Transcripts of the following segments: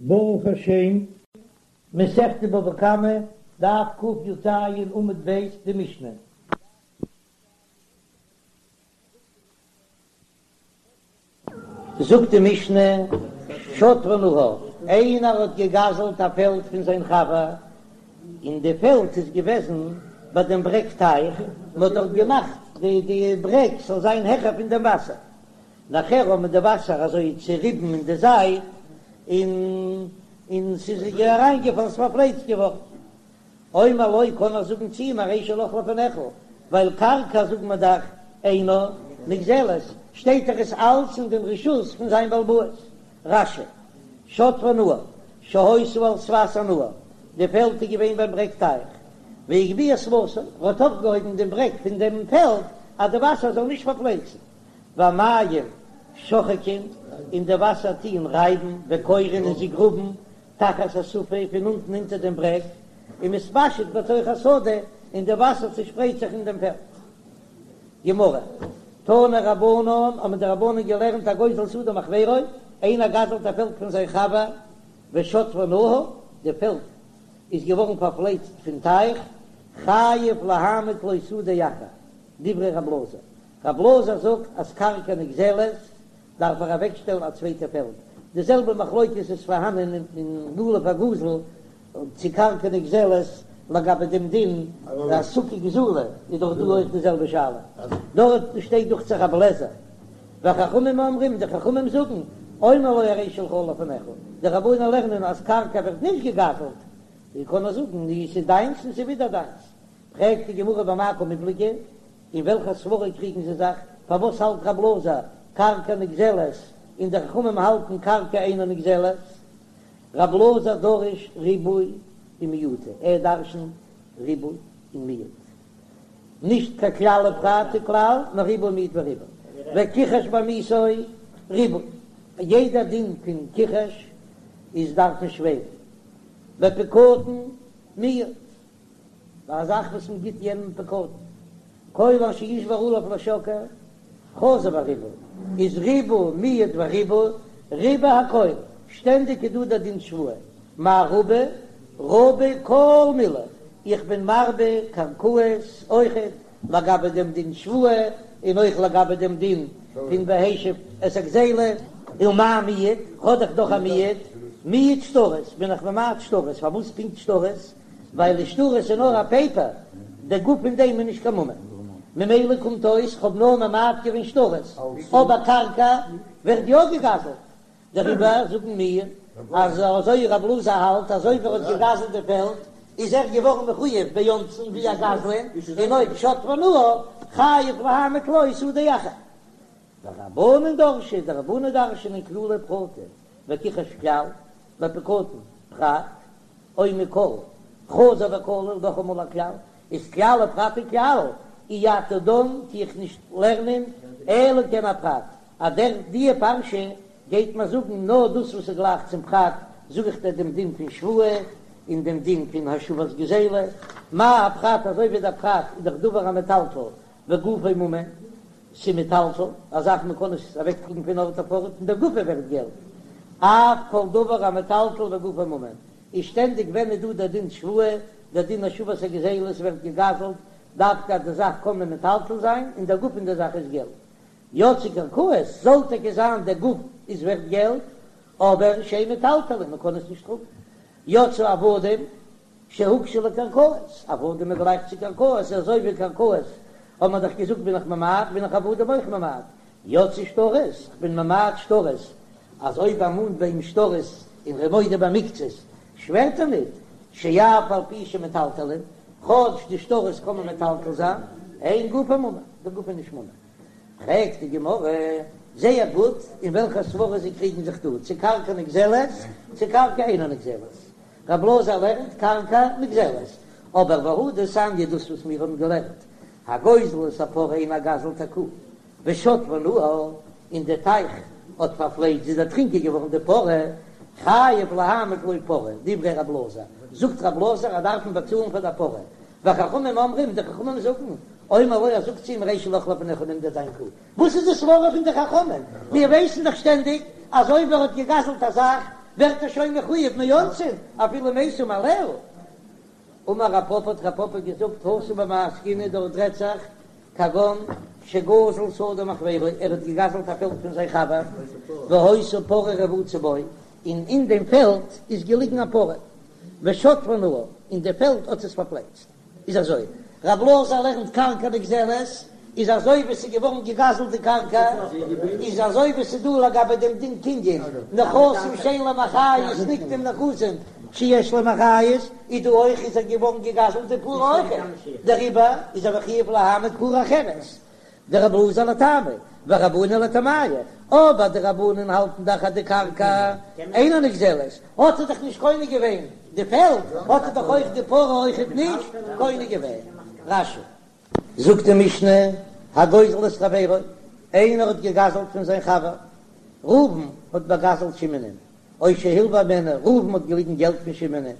ברוך השם, מסכת בבא קמא, דף קי"ז עמוד ב', די משנה. זאגט די משנה, שטפה נהר, איינער האט געגזלט א פעלד פון זיין חבר, און די פעלד איז געוועזן ביי דעם ברעג טייך, מען האט דארט געמאכט די די ברעג זאל זיין העכער פון דעם וואסער, נאכער האבן די וואסער אזוי צוריבן אין די זייט, און און ס'איז אריינגעפאלן, ס'איז פארפלייצט געווארן. אומר לו קען ער זאגן צו אים הרי שלך לפניך, ווייל קרקע זאגט מען דאך אינה נגזלת, שטייט דאך עס אלץ אין דעם רשות פון זיין בעל הבית. רש"י, שטפה נהר, שהיתה על שפת הנהר, די פעלד איז געווען ביים ברעג טייך, והגביה שפתו, ער האט אויפגעהויבן דעם ברעג פון דעם פעלד אז די וואסער זאל נישט פארפלייצן, והמים שוחקין, און די וואסער טוען רייבן, וכורין און זיי גראבן, תחת השפה, פון אונטן אונטער דעם ברעג, ומתפשט בתוך השדה, און די וואסער צעשפרייט זיך אין דעם פעלד. גמרא, תנו רבנן, האבן די רבנן געלערנט הגוזל שדה מחבירו, איינער גזל'ט א פעלד פון זיין חבר, ושטפה נהר, די פעלד איז געווארן פארפלייצט פון טייך, חייב להעמיד לו שדה אחר, דברי רב אלעזר, רב אלעזר זאגט אז קרקע נגזלת דארף ער אוועקשטעלן א צווייטע פעלד, די זעלבע מחלוקת איז פארהאנען אין לולב הגזול צו קרקע נגזלת לגבי דעם דין אז סוכה גזולה איז דאך דא אויך די זעלבע שאלה, דארט שטייט דוכט זיך רבי אליעזר וחכמים אומרים די חכמים זאגן אומר לו הרי שלך לפניך, די רבנן לערנען אז קרקע ווערט נישט געגזלט, ווי קען ער זאגן ס'איז דיינס און ס'איז ווידער דיינס, פרעגט די גמרא במאי קמיפלגי, אין וועלכע סברא קריגן זיי זיך? פארוואס האלט רב אלעזר קרקע נגזלת און די חכמים האלטן קרקע אינה נגזלת? רב אלעזר דריש ריבוי ומיעוטא, ער דרשנט ריבוי און מיעוט, נישט קיין כלל ופרט וכלל, נאר ריבוי מיעוט וריבה, וכחש בעמיתו ריבוי, יעדע דין פון כחש איז דארף מען שווערן, בפקדון מיעוט. ביי א זאך וואס מען גיט יענעם פקדון, כל אשר ישבע עליו לשקר, חזר וריבה, איז ריבה מיעט וריבה, ריבה הכל, שטענדיג איז דא דער דין שבועה, מאי רבי, רבי כל מילי, איך בין מרבה קרקעות אויכעט לגבי דעם דין שבועה, און אויך לגבי דעם דין פון והשיב את הגזילה, ומאי מיעט, האב איך דאך א מיעוט, מיעט שטרות, בין איך ממעט שטרות, פארוואס פונקט שטרות? ווייל די שטרות איז נאר א פעיפער, די גוף פון דעם איז נישט קיין ממון, ממילא קומט אויס כ'האב נאר ממעט געווען שטרות, אבער קרקע ווערט יא געגזלט, דעריבער זאגן מיר אז אזוי רב אלעזר האלט אז אויב ער האט געגזלט די פעלד איז ער געווארן מחויב באונסין ווי א גזלן, און אויב שטפה נהר חייב להעמיד לו שדה אחר. ורבנן דרשי, די רבנן דרש'נען כללי ופרטי, וכחש כלל, בפקדון פרט, אומר כל, חזר וכלל, נאכאמאל א כלל, איז כלל ופרט וכלל, אי אתה דן טו איך נישט לערנען אלא כעין הפרט, אז דער דיע פרשה גייט מיר זאגן נאר דאס וואס איז גלייך צום פרט, זאג איך דיר דעם דין פון שבועה און דעם דין פון השבת גזילה, מה הפרט אזוי ווי דער פרט איז דאך דבר המטלטל וגופו ממון, ס'מטלטל, א זאך מען קען עס אוועקטראגן פון ארט אויף ארט און דער גוף ווערט געלט, אף כל דבר המטלטל וגופו ממון, איז שטענדיג ווען איז דא דער דין שבועה, דער דין השבת הגזילה, ס'ווערט געגזלט, דווקא אז די זאך קען מען מטלטל זיין און דער גוף פון דער זאך איז געלט. יצאו קרקעות, זאל טאקע זיין דער גוף איז ווערט געלט, אבער שאין מטלטלין, מען קען עס נישט טראגן. יצאו עבדים, שהוקשו לקרקעות, עבדים איז גלייך צו קרקעות, אזוי ווי קרקעות האט מען דאך געזאגט בין איך ממעט, בין איך עבדים אויך ממעט, יצאו שטרות, איך בין ממעט שטרות, אז אויב ער מאנט ביי אים שטרות און ער איז מודה במקצת, שווערט ער ניט, שאף על פי שמטלטלין, כאטש די שטרות קען מען מטלטל זיין, אין גופן ממון, די גוף איז נישט ממון. פרעגט די גמרא, זייער גוט, אין וועלכע סברא זיי קריגן זיך דא, צו קרקע נגזלת, צו קרקע אינה נגזלת. רב אלעזר לערנט קרקע נגזלת, אבער והא דתניא דאס וואס מיר האבן געלערנט, הגוזל את הפרה איינער גזל'ט א קו, ושטפה נהר, און די טייך האט פארפלייצט, זי איז דערטרינקען געווארן די פרה, חייב להעמיד לו פרה, דברי רב אלעזר, זאגט רב אלעזר אז דארף מען באצאלן פאר דער פרה, וחכמים אומרים, די חכמים זאגן, אומר לו ער זאגט צו אים הרי שלך לפניך נעם דיר דיין קו, וואס איז די סברא פון די חכמים? מיר ווייסן דאך שטענדיג אז אויב ער האט געגזלט א זאך. ווערט ער שוין מחויב מאונסין אפילו מתה מאליה. אמר רב פפא האט רב פפא געזאגט התם במאי עסקינן דארט רעדט זיך כגון שגזל שדה מחבירו ער האט געגזלט א פעלד פון זיין חבר והיתה פרה רבוצה בו און אין דעם פעלד איז געליגן א פרה ושטפה נהר און די פעלד האט עס פארפלייצט. איז אזוי, רב אלעזר לערנט קרקע נגזלת, איז אזוי ווי ס'איז געווארן געגזלט די קרקע, איז אזוי ווי ס'איז דא לגבי דעם דין קנין, נכסים שאין להם אחריות נקנים נכסים שיש להם אחריות, איז דא אויך איז ער געווארן געגזלט די פרה אויך, דעריבער איז ער מחויב להעמיד פרה אחרת, דרבי אלעזר לטעמיה, ורבנן לטעמייהו, אבער די רבנן האלטן דאך אז די קרקע אינה נגזלת, האט ער דאך נישט קונה געווען די פעלד, האט ער דאך אויך די פרה אויכעט נישט קונה געווען. רש"י. זאגט די משנה, הגוזל את חברו, איינער האט געגזלט פון זיין חבר, ראובן האט באגזלט שמעונ'ען, או שהלווה הימנו, ראובן האט געליגן געלט פון שמעונ'ען,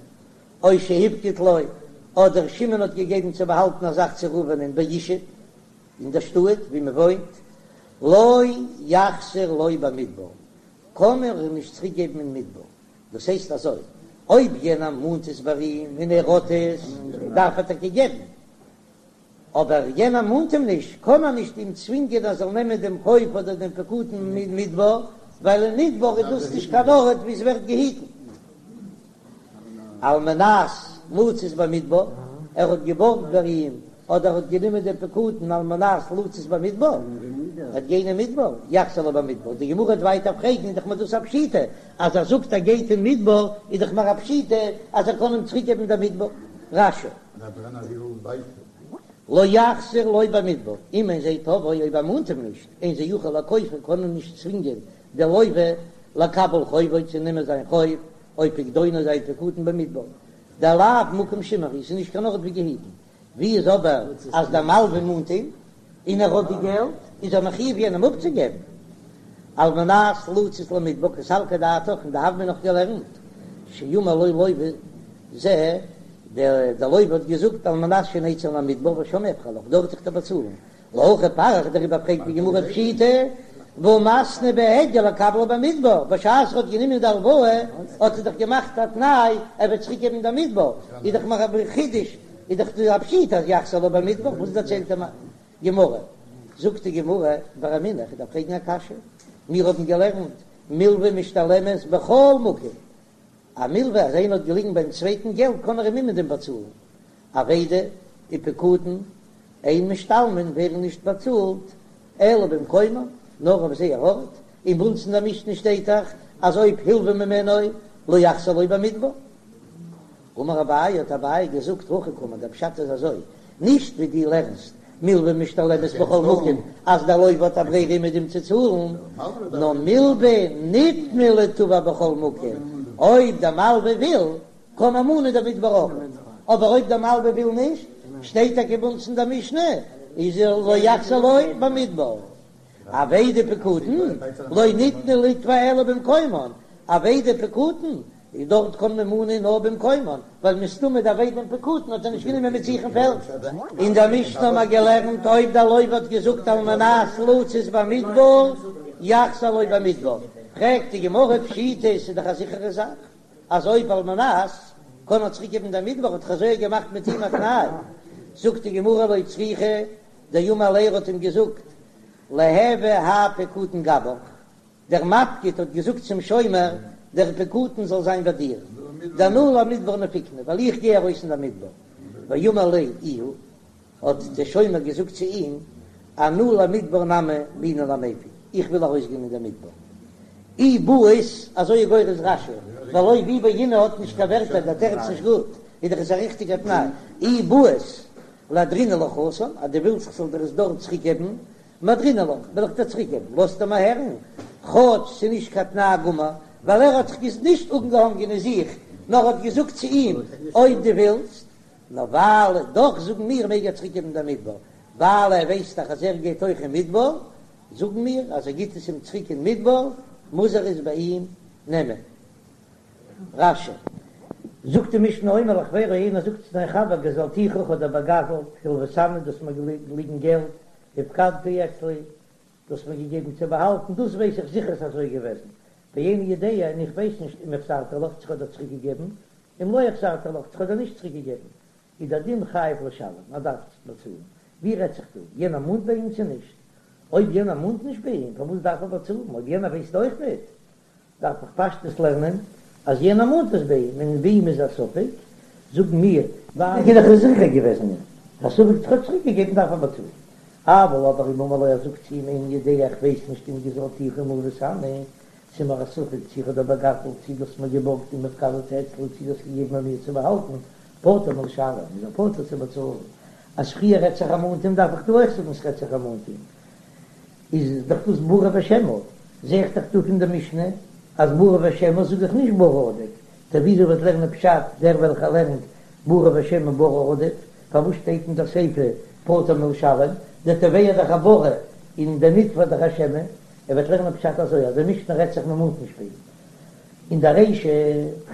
או שהפקיד לו, אדער שמעון האט געגעבן צו באהאלטן א זאך צו ראובנ'ען בישוב, אין דער שטאט ווי מען וואוינט, לא יחזיר לו במדבר, קען ער אים נישט צוריק געבן אין מדבר, דאס הייסט אזוי, אויב יענער מאנט עס ביי אים און ער האט עס, דארף ער טאקע געבן, אבער יענער מאנט אים נישט, קען ער נישט אים צווינגען ער זאל נעמען דעם חוב אדער דעם פקדון אין מדבר, ווייל אין מדבר איז דאס נישט קיין ארט וואו עס ווערט געהיטן. על מנת לצאת במדבר, ער האט געבארגט ביי אים אדער האט גענומען דעם פקדון על מנת לצאת במדבר, ער וועט גיין אין מדבר, יחזיר לו במדבר, די גמרא וועט ווייטער פרעגן, איז דאך מיר דאס א פשיטא, אז ער זאגט ער גייט אין מדבר, איז דאך מיר א פשיטא אז ער קען אים צוריק געבן דעם מדבר. רש"י. לא יחזיר לו במדבר, אם אין זה תובעו אויב ער מאנט אים נישט, אין זה יכול לכופו קען ער נישט צווינגען די לוה לקבל חובו צו נעמען זיין חוב, או פקדונו זיין פקדון במדבר, דלאו מקום שימור הוא, ס'איז נישט קיין ארט ווי געהיטן, ווי איז אבער אז דער מלווה מאנט אים און ער האט די געלט, איז ער מחויב יענעם אפצוגעבן, על מנת לצאת למדבר קא סלקא דעתך, אין די הוה אמינא נאך געלערנט שאמר לו לוה זה, דער לוה האט געזאגט על מנת שנצא למדבר ושם אפרע לך, דארט וועל איך דיר באצאלן, להכי פריך דעריבער פרעגט די גמרא פשיטא והא מתנה בהדיא לקבלה במדבר, בשעת ער האט גענומען די הלוואה האט ער דאך געמאכט א תנאי ער וועט צוריק געבן די מדבר, איז דאך מיר א חידוש, איז דאך דא א פשיטא אז יחזיר לו במדבר, וואס דערציילט די גמרא? זאגט די גמרא ורמינהו, איך דארף פרעגן א קשיא, מיר האבן געלערנט מלווה משתלמת בכל מקום, א מלווה אז איינער האט געליגן ביים צווייטן געלט קען ער אים אומעדום באצאלן, אבידה ופקדון אין משתלמין ווערן נישט באצאלט אלא במקומן נאר אויף זייער ארט, און ביי אונז אין דער משנה שטייט דאך אז אויב הלווה ממנו לא יחזיר לו במדבר. אמר אביי האט אביי געזאגט הכי קאמר דער פשט איז אזוי, נישט ווי דו לערנסט מלווה משתלמת בכל מקום אז דער לוה האט א ברירה אומעדום צו צאלן, נאר מלווה ניתנה ליתבע בכל מקום, אויב דער מלווה וויל קען מען מאנען דער מדבר אויך, אבער אויב דער מלווה וויל נישט, שטייט טאקע ביי אונז אין דער משנה, איז לא יחזיר לו במדבר. אבידה ופקדון לא ניתנו ליתבע אלא במקומן, אבידה ופקדון איז דארט קען מען מאנען נאר במקומן, ווייל מסתמא די אבידה און פקדון האט ער נישט גענומען מיט זיך אין פעלד. אין דער משנה האבן מיר געלערנט אויב דער לוה האט געזאגט על מנת לצאת במדבר יחזיר לו במדבר, פרעגט די גמרא פשיטא ס'איז דאך א זיכערע זאך אז אויב על מנת קען ער צוריק געבן דער מדבר האט דאך אזוי געמאכט מיט אים א תנאי, זאגט די גמרא לא צריכא דאמר ליה ער האט אים געזאגט ליהוי האי פקדון גבך, דער מפקיד האט געזאגט צום שומר, דער פקדון זאל זיין ביי דיר, דאנא למדבר נפיקנא, ווייל איך גיי ארויס אין דער מדבר. ואמר ליה איהו, האט דער שומר געזאגט צו אים, אנא למדבר נמי בעינא למיפק, איך וויל ארויסגיין אין דער מדבר. אי בעית, אזוי איז גורס רש"י, ווייל אויב אי בעינא האט נישט קיין ווערטער, דער תירוץ נישט גוט, איז דאך עס א ריכטיגער תנאי, אי בעית לאהדרינהו לך התם, אז דו ווילסט איך זאל דיר עס דארט צוריקגעבן, מהדרינהו לך, וועל איך דיר צוריק געבן, לאזט ער מיר הערן, כאטש ס'איז נישט קיין תנאי גמור, ווייל ער האט זיך נישט אנגעהאנגען אין זיך, נאר האט געזאגט צו אים, אויב דו ווילסט, נאר ווייל, דאך זאגן מיר מעג ער צוריק געבן דעם מדבר, ווייל ער ווייסט דאך אז ער גייט אויך אין מדבר, זאגן מיר אז ער גיט עס אים צוריק אין מדבר, מוז ער עס ביי אים נעמען. רש"י. זאגט די משנה האומר לחבירו איינער זאגט צו זיין חבר גזלתיך איך האב דיר באגזלט, הלויתני דו האסט מיר געליגן געלט, הפקדת אצלי, דו האסט מיר געגעבן צו באהאלטן, דאס ווייס איך זיכער ס'איז אזוי געוועזן. ואיני יודע און איך ווייס נישט אם החזרתי לך צו כ'האב דיר צוריק געגעבן, אם לא החזרתי לך צו כ'האב דיר נישט צוריק געגעבן, איז דער דין חייב לשלם, ער דארף באצאלן. ווי רעדט זיך דא? יענער מאנט ביי אים צו נישט? אויב יענער מאנט נישט ביי אים, פארוואס דארף ער באצאלן? אויב יענער ווייסט אויך ניט, דארף איך פשטות לערנען אז יענער מאנט עס ביי אים, און ביי אים איז א ספק, זאגן מיר, ווייל ער איז זיכער געוועזן א ספק צו כ'האב צוריק געגעבן דארף ער באצאלן. אבל אבער אם אמר לו ער זאגט צו אים איני יודע איך ווייס נישט אם גזלתיך אם הלויתני, ס'איז מיר א ספק צו איך האב דיר באגזלט צו דו האסט מיר געבארגט אם הפקדתו אצלי צו דו האסט געגעבן ביי מיר צו באהאלטן, פטור מלשלם, איז ער פטור צו באצאלן. אז פריער רעדט זיך ער מאנט אים דארף איך דא אויך זאגן ס'רעדט זיך ער מאנט אים. איז דאך דאס ברי ושמא, זע איך דאך דא פון די משנה אז ברי ושמא זאג איך נישט ברי עדיף, טא וויאזוי וועט לערנען פשט דער וועלכער לערנט ברי ושמא ברי עדיף, פארוואס שטייט אין דער סיפא פטור מלשלם, דער תובע איז דאך א ברי און דער נתבע דאך א שמא, ער וועט לערנען פשט אזוי אז די משנה רעדט זיך מ'מאנט נישט ביי אים אין דער רישא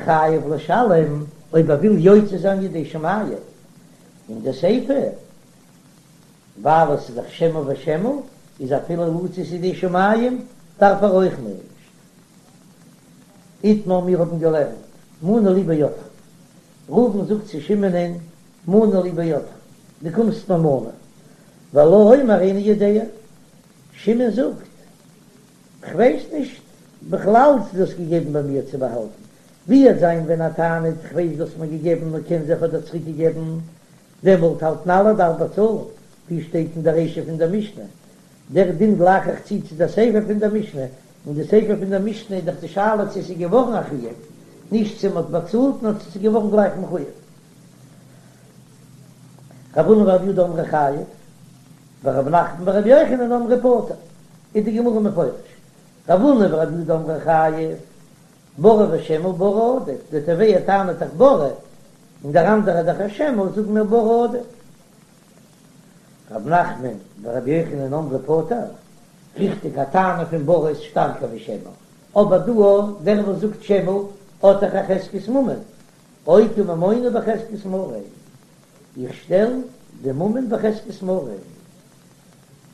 חייב לשלם אויב ער וויל יוצא זיין ידי שמים, אין די סיפא ווייל עס איז דאך שמא ושמא, איז אפילו לצאת ידי שמים דארף ער אויך נישט. איתמר מיר האבן געלערנט מנה לי בידך, ראובן זאגט צו שמעונ'ען מנה לי בידך, דו קומסט מיר מנה, והלה אומר איני יודע, שמעון זאגט כ'ווייס נישט בכלל צו דו האסט געגעבן ביי מיר צו באהאלטן, ווי וועט זיין ווען ער טענה'ט כ'ווייס דו האסט מיר געגעבן נאר קען זיין כ'האב דיר צוריק געגעבן, דעמאלט האלטן אלע דארף באצאלן, ווי שטייט אין דער רישא פון דער משנה, דער דין גלייך איך צו צו דער סיפא פון דער משנה, אין די סיפא פון דער משנה איז דאך די שאלה צו עס איז געווארן א חיוב, נישט צו מען האט באצאלט נאר צו עס איז געווארן גלייך מחויב. רב הונא ורב יהודה אמרי חייב, ורב נחמן ורבי יוחנן אמרי פטור, איז די גמרא מפרש, רב הונא ורב יהודה אמרי חייב, ברי ושמא ברי עדיף, דער תובע טענה'ט דאך ברי, און דער אנדערער דאך א שמא, זאגן מיר ברי עדיף. רב נחמן ורבי יוחנן אמרי פטור, ריכטיג א טענה פון ברי איז שטארקער ווי שמא, אבער דא דער וואס זאגט שמא האט דאך א חזקת ממון, אוקי ממונא בחזקת מריה, איך שטעל די ממון בחזקת מריה,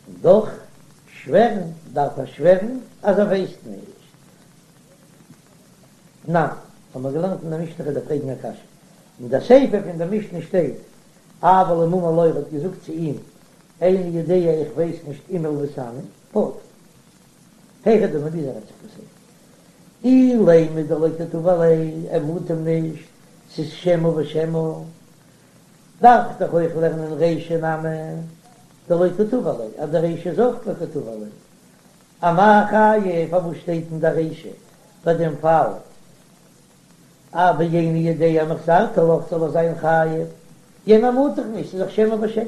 און דאך שווערן דארף ער שווערן אז ער ווייסט נישט. תנן, האבן מיר געלערנט אין דער משנה כ'וועל דיר פרעגן א קשיא. אין דער סיפא פון דער משנה שטייט, אבל אם אמר לו ער האט געזאגט צו אים, איני יודע איך ווייס נישט אם הלויתני, פטור. היכי דמי ווי אזוי רעדט זיך די סיפא? אילימא דלא קא תבע ליה, ער מאנט אים נישט, ס'איז שמא ושמא. דארף איך דאך אויך לערנען רישא נמי דלא קא תבע ליה, אז די רישא איז אויך לא קא תבע ליה. אמאי חייב, פארוואס שטייט אין דער רישא ביי דעם פאל אז ואיני יודע אם החזרתי לך זאל ער זיין חייב, יענער מאנט דאך נישט, ס'איז דאך שמא ושמא.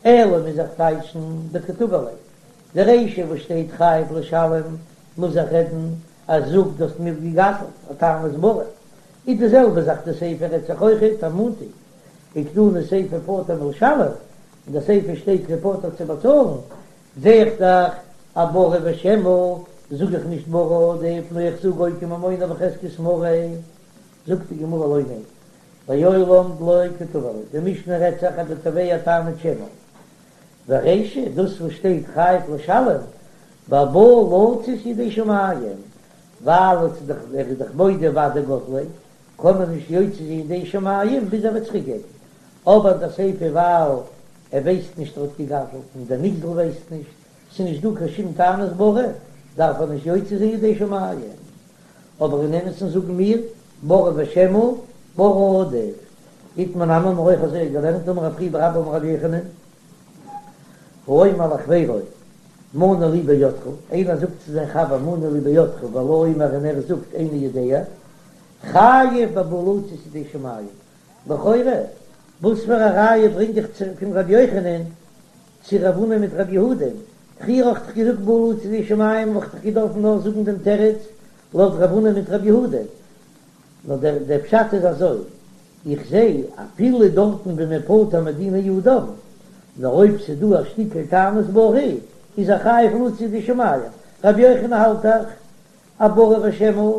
אלא מוז איך טייטשן דקא תבע ליה, די רישא וואס שטייט חייב לשלם מוז איך רעדן אז זאג דו האסט מיר געגזלט א טענת ברי, איז די זעלבע זאך די סיפא רעדט זיך אויכעט ער מאנט אים, וקתני סיפא פטור מלשלם, אין די סיפא שטייט פטור צו באצאלן, זע איך דאך אז ברי ושמא, זאג איך נישט ברי עדיף, נאר איך זאג אוקי ממונא בחזקת מריה, זאגט די גמרא לא ניין, לעולם דלא קא תבע ליה, די משנה רעדט זיך אז די תובע טענה'ט שמא, ורישא, דאס וואס שטייט חייב לשלם, בבא לצאת ידי שמים, ווייל עס איז דאך ער איז דאך מודה ודאי גזליה, קען מען נישט יוצא זיין ידי שמים ביז ער וועט צוריק געבן, אבער די סיפא ווייל ער ווייסט נישט ער האט געגזלט און דער נגזל ווייסט נישט, ס'איז נישט דא קיין שום טענת ברי, דארף ער נישט יוצא זיין ידי שמים. אבער אין אמת'ן זאגן מיר, ברי ושמא, ברי עדיף. איתמר נמי האבן מיר אויך אזוי געלערנט אמר רב חייא בר אבא אמר רבי יוחנן, האומר לחבירו מנה לי בידך, איינער זאגט צו זיין חבר מנה לי בידך והלה אומר און ער זאגט איני יודע, חייב בבא לצאת ידי שמים, לכאורה וואס פאר א ראיה ברענג איך צו פון ר' יוחנן צו רב הונא מיט רב יהודה? פריער האב איך דאך געזאגט בא לצאת ידי שמים וואלט איך דאך געדארפן נאר זאגן דעם תירוץ לויט רב הונא מיט רב יהודה. נאר דער דער פשט איז אזוי, איך זע אפילו דארטן ווי מען פטור מדיני אדם, נאר אויב ס'איז דא א שטיקל טענת ברי איז ער חייב לצאת ידי שמים, רבי יוחנן האלט דאך אז ברי ושמא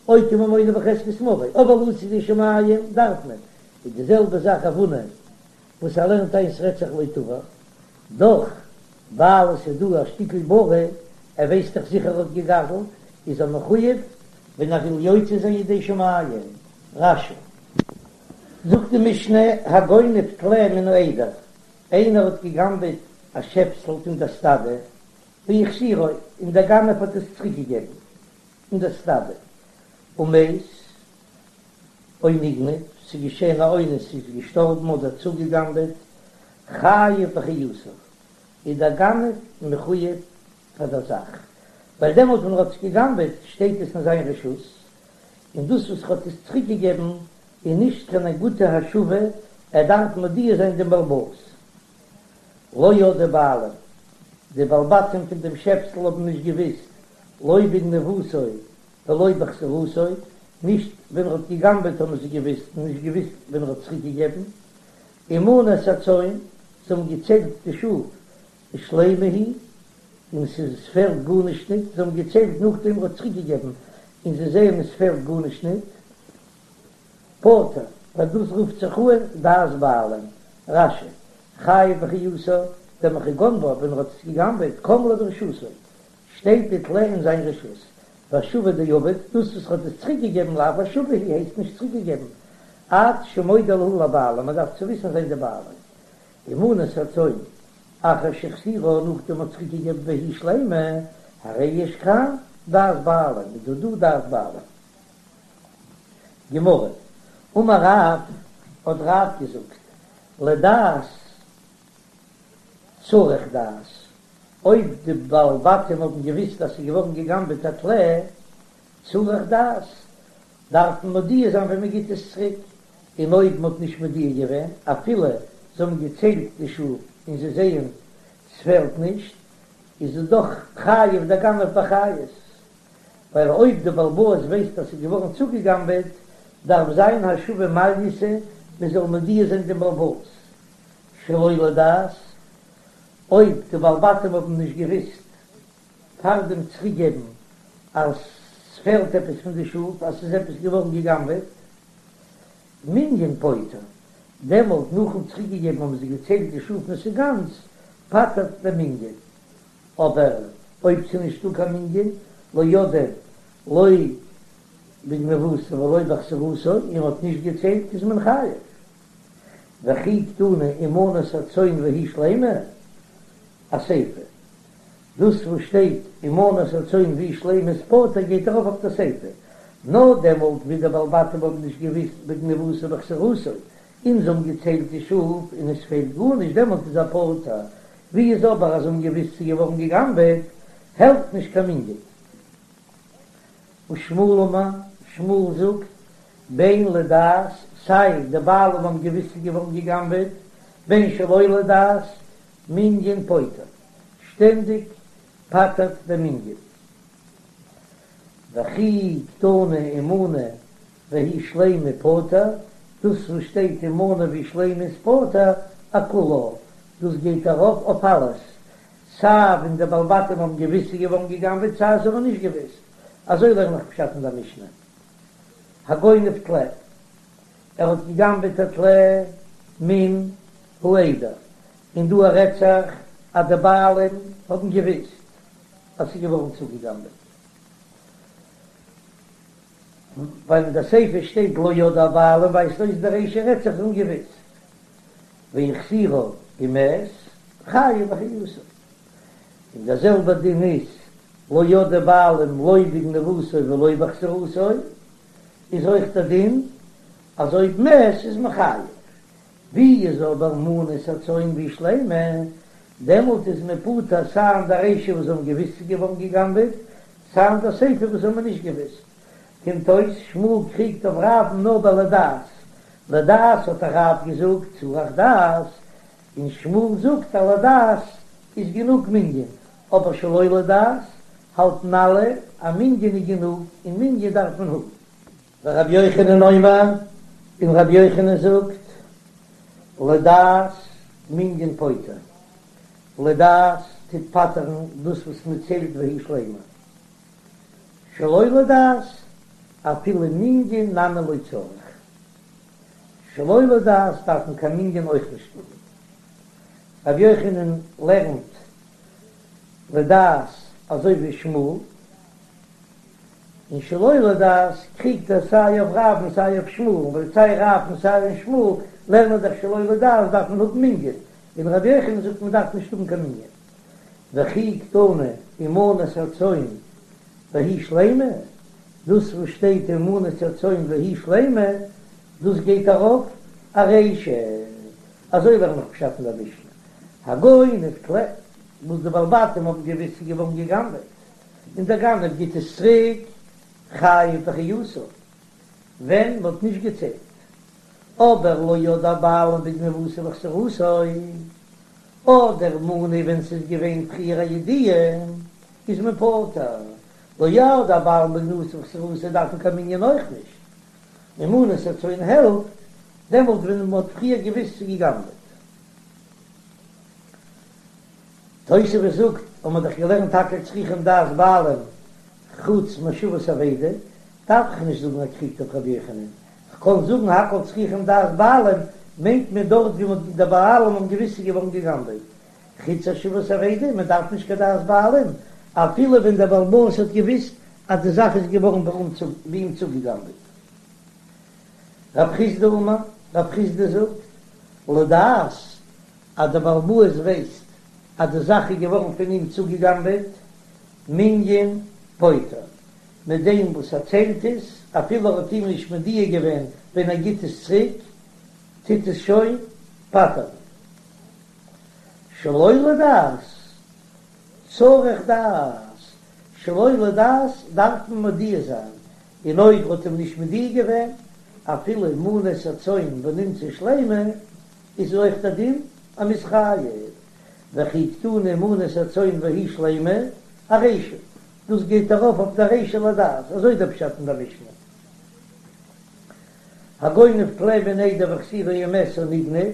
אוקי ממונא בחזקת מריה, אבער לצאת ידי שמים דארף מען, איז די זעלבע זאך רב הונא וואס ער לערנט איין ס'רעדט זיך לא תבע, דאך ווייל עס איז דא א שטיקל ברי, ער ווייסט דאך זיכער ער האט געגזלט, איז ער מחויב ווען ער וויל יוצא זיין ידי שמים. רש"י. זאגט די משנה, הגונב טלה מן העדר, איינער האט גע'גנב'עט א שעפסל פון דער סטאדע, והחזירו, און דער גנב האט עס צוריק געגעבן אין דער סטאדע, ומת, או נגנב, ס'איז געשען א אונס, ס'איז געשטארבן אדער צוגע'גנב'עט, חייב באחריותה, איז דער גנב מחויב פאר דער זאך, ווייל דעמאלט ווען ער האט עס גע'גנב'עט שטייט עס אין זיין רשות, און דאס וואס ער האט עס צוריק געגעבן איז נישט קיין גוטע השבה, ער דארף מודיע זיין דעם בעל הבית. לא ידעו בעלים, די בעלי בתים פון דעם שעפסל האבן נישט געוויסט, לא בגניבתו ולא בהחזרתו, נישט ווען ער האט גע'גנב'עט האבן זיי געוויסט און נישט געוויסט ווען ער האט צוריק געגעבן, ומנו את הצאן, זיי האבן געציילט די שאף, ושלימה היא, און ס'איז עס פעלט גארנישט ניט, זיי האבן געציילט נאכדעם ער האט צוריק געגעבן, און זיי זעען עס פעלט גארנישט ניט, פטור, ווייל דאס רופט זיך אן דעת בעלים, רש"י, חייב באחריותה, דמכי גנבה ווען ער האט עס געגנבעט, קם ליה ברשותו, שטייט די טלה אין זיין רשות, והשבה דעבד, דאס וואס ער האט עס צוריק געגעבן לאו השבה היא הייסט נישט צוריק געגעבן, עד שמודיע להו לבעלים, מען דארף צו וויסן זיין די בעלים. ומנה את הצאן, אחר שהחזירה נאכדעם האט צוריק געגעבן והיא שלימה, הרי יש כאן דעת בעלים, איז דא דא דעת בעלים. גמרא, אמר רב, האט רב געזאגט, לדעת צריך דעת, אויב די בעלי בתים האבן געוויסט אז ס'איז געווארן גע'גנב'עט א טלה, צריך דעת, דארף מען מודיע זיין ווען מען גיט עס צוריק, און אויב מען האט נישט מודיע געווען, אפילו זיי האבן געציילט די שאף און זיי זעען ס'פעלט נישט, איז עס דאך חייב דער גנב באחריות, ווייל אויב די בעל הבית ווייסט אז ס'איז געווארן צוגעגנבעט, דארף זיין השבה מעלייתא, מען זאל מודיע זיין דעם בעל הבית שלא לדעת, אויב די בעלי בתים האבן נישט געוויסט פאר דעם צוריקגעבן אז ס'פעלט עפעס פון די שאף, אז ס'איז עפעס געווארן געגנבעט, מנין פוטר, דעמאלט נאכן צוריקגעגעבן האבן זיי געציילט די שאף און ס'איז גאנץ, פטר'ט דער מנין. אבער אויב ס'איז נישטא קיין מנין, לא ידעו לא בגניבתו ולא בהחזרתו, און מ'האט נישט געציילט איז מען חייב. וכי קתני ומנה את הצאן והיא שלימה, אסיפא. דאס וואס שטייט ומנה את הצאן והיא שלימה איז פטור גייט ארויף אויף די סיפא, נאר דעמאלט ווי די בעלי בתים האבן נישט געוויסט בגניבתו ובהחזרתו און זיי האבן געציילט די שאף און עס פעלט גארנישט דעמאלט איז ער פטור, ווי איז אבער אז זיי האבן געוויסט ס'איז געווארן גע'גנב'עט העלפט נישט קיין מנין. ושמואל אמר, שמואל זאגט, בין לדעת, סיי די בעלים האבן געוויסט ס'איז געווארן גע'גנב'עט, בין שלא לדעת, מנין פוטר, שטענדיג פטר'ט דער מנין. וכי קתני ומנה והיא שלימה פטור, דאס וואס שטייט ומנה והיא שלימה איז פטור, אכולה, דאס גייט ארויף אויף אלעס, סיי ווען די בעלי בתים האבן געוויסט ס'איז געווארן גע'גנב'עט סיי זיי האבן נישט געוויסט, אזוי לערן איך פשט אין דער משנה. הגונב טלה, ער האט גע'גנב'עט א טלה מן העדר, און דא רעדט זיך אז די בעלים האבן געוויסט אז ס'איז געווארן צוגע'גנב'עט, ווייל אין די סיפא שטייט לא ידעו הבעלים ווייזט אויס די רישא רעדט זיך זיי האבן געוויסט, והחזירה ומת חייב באחריותה, און דער זעלבער דין איז לא ידעו בעלים לא בגניבתו ולא בהחזרתו, איז אויך דער דין אז אויב מת איז מען חייב, ווי איז אבער מנה את הצאן והיא שלימה, דעמאלט איז מען פטור סיי אין די רישא וואס זיי האבן געוויסט ס'איז געווארן גע'גנב'עט, סיי אין די סיפא וואס זיי האבן נישט געוויסט. קומט אויס שמואל קריגט אויף רב'ן נאר ביי לדעת, לדעת האט רב געזאגט צריך דעת, און שמואל זאגט אז לדעת איז גענוג מנין, אבער שלא לדעת האלטן אלע אז מנין איז גענוג און מנין דארף מען האבן. ורבי יוחנן אומר, און רבי יוחנן זאגט, לדעת מנין פוטר, לדעת טוט פטר'ן דאס וואס מען ציילט והיא שלימה, שלא לדעת אפילו מנין נמי לא צריך, שלא לדעת דארף מען קיין מנין אויך נישט האבן. רבי יוחנן לערנט לדעת אזוי ווי שמואל. און שלא לדעת קריגט ער סיי אויף רב און סיי אויף שמואל, ווייל סיי רב און סיי שמואל לערנען דאך שלא לדעת דארף מען האבן מנין, און רבי יוחנן זאגט מען דארף נישט האבן קיין מנין. וכי קתני ומנת הצאן והיא שלימה, דאס וואס שטייט ומנת הצאן והיא שלימה, דאס גייט ארויף ארישא, אזוי לערן איך פשט אין דער משנה, הגונב טלה, וואס די בעלי בתים האבן געוויסט ס'איז געווארן גע'גנב'עט, און דער גנב גיט עס צוריק חייב באחריותו, ווען מ'האט נישט געציילט. אבער לא ידעו הבעלים בגניבתו ובחזירתו, אדער מנה ווען ס'איז געווען פריער א ידיעה, איז מען פטור. לא ידעו הבעלים בגניבתו ובחזירתו דארף מען קיין מנין אויך נישט. און מנת הצאן העלפט דעמאלט ווען מ'האט פריער געוויסט ס'איז גע'גנב'עט. תוספות זאגט, האבן מיר דאך געלערנט הכל צריכים דעת בעלים חוץ מהשבת אבידה, דארף איך נישט זאגן ער קריגט אויף רבי יוחנן, כ'קען זאגן הכל צריכים דעת בעלים מיינט מען דארט ווי מ'האט די בעלים האבן געוויסט ס'איז געווארן גע'גנב'עט, חוץ השבת אבידה, מען דארף נישט קיין דעת בעלים אפילו ווען דער בעל הבית האט געוויסט אז די זאך איז געווארן ביי אים צוגע'גנב'עט. רב חסדא אמר, רב חסדא זאגט, לדעת אז דער בעל הבית ווייסט אז די זאך איז געווארן פון אים צוגעגנבעט, מנין פוטר, מיט דעם וואס ער ציילט עס, אפילו ער האט אים נישט מודיע געווען ווען ער גיט עס צוריק, טוט עס שוין פטר'ן. שלא לדעת, צריך דעת, שלא לדעת דארף מען מודיע זיין, און אויב ער האט אים נישט מודיע געווען, אפילו מנת הצאן ונמצא שלימה, איז אויך דער דין אז מ'איז חייב, וכי קתני מנת הצאן והיא שלימה, ארישא, דאס גייט ארויף אויף דער רישא לדעת, אזוי דער פשט אין דער משנה. הגונב טלה מן העדר והחזירו ומת או נגנב,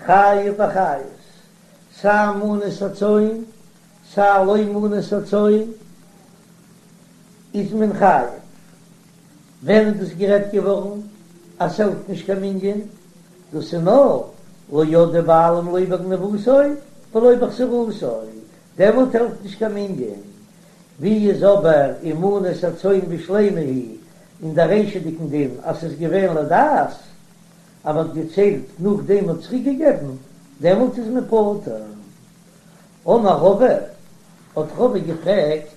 חייב באחריות, סיי מנת הצאן, סיי לא מנת הצאן, איז מען חייב. ווען איז דאס גערעדט געווארן אז ס'העלפט נישט קיין מנין? דאס איז נאר לא ידעו בעלים לא בגניבתו ולא בחזירתו, דעמאלט העלפט נישט קיין מנין. ווי איז אבער ומנת הצאן ושלימה היא אין דער רישא'דיגן דין אז ס'איז געווען לדעת אז מ'האט געציילט נאכדעם מ'האט צוריק געגעבן, דעמאלט איז מען פטור. אמר רבא, האט רבא געפרעגט.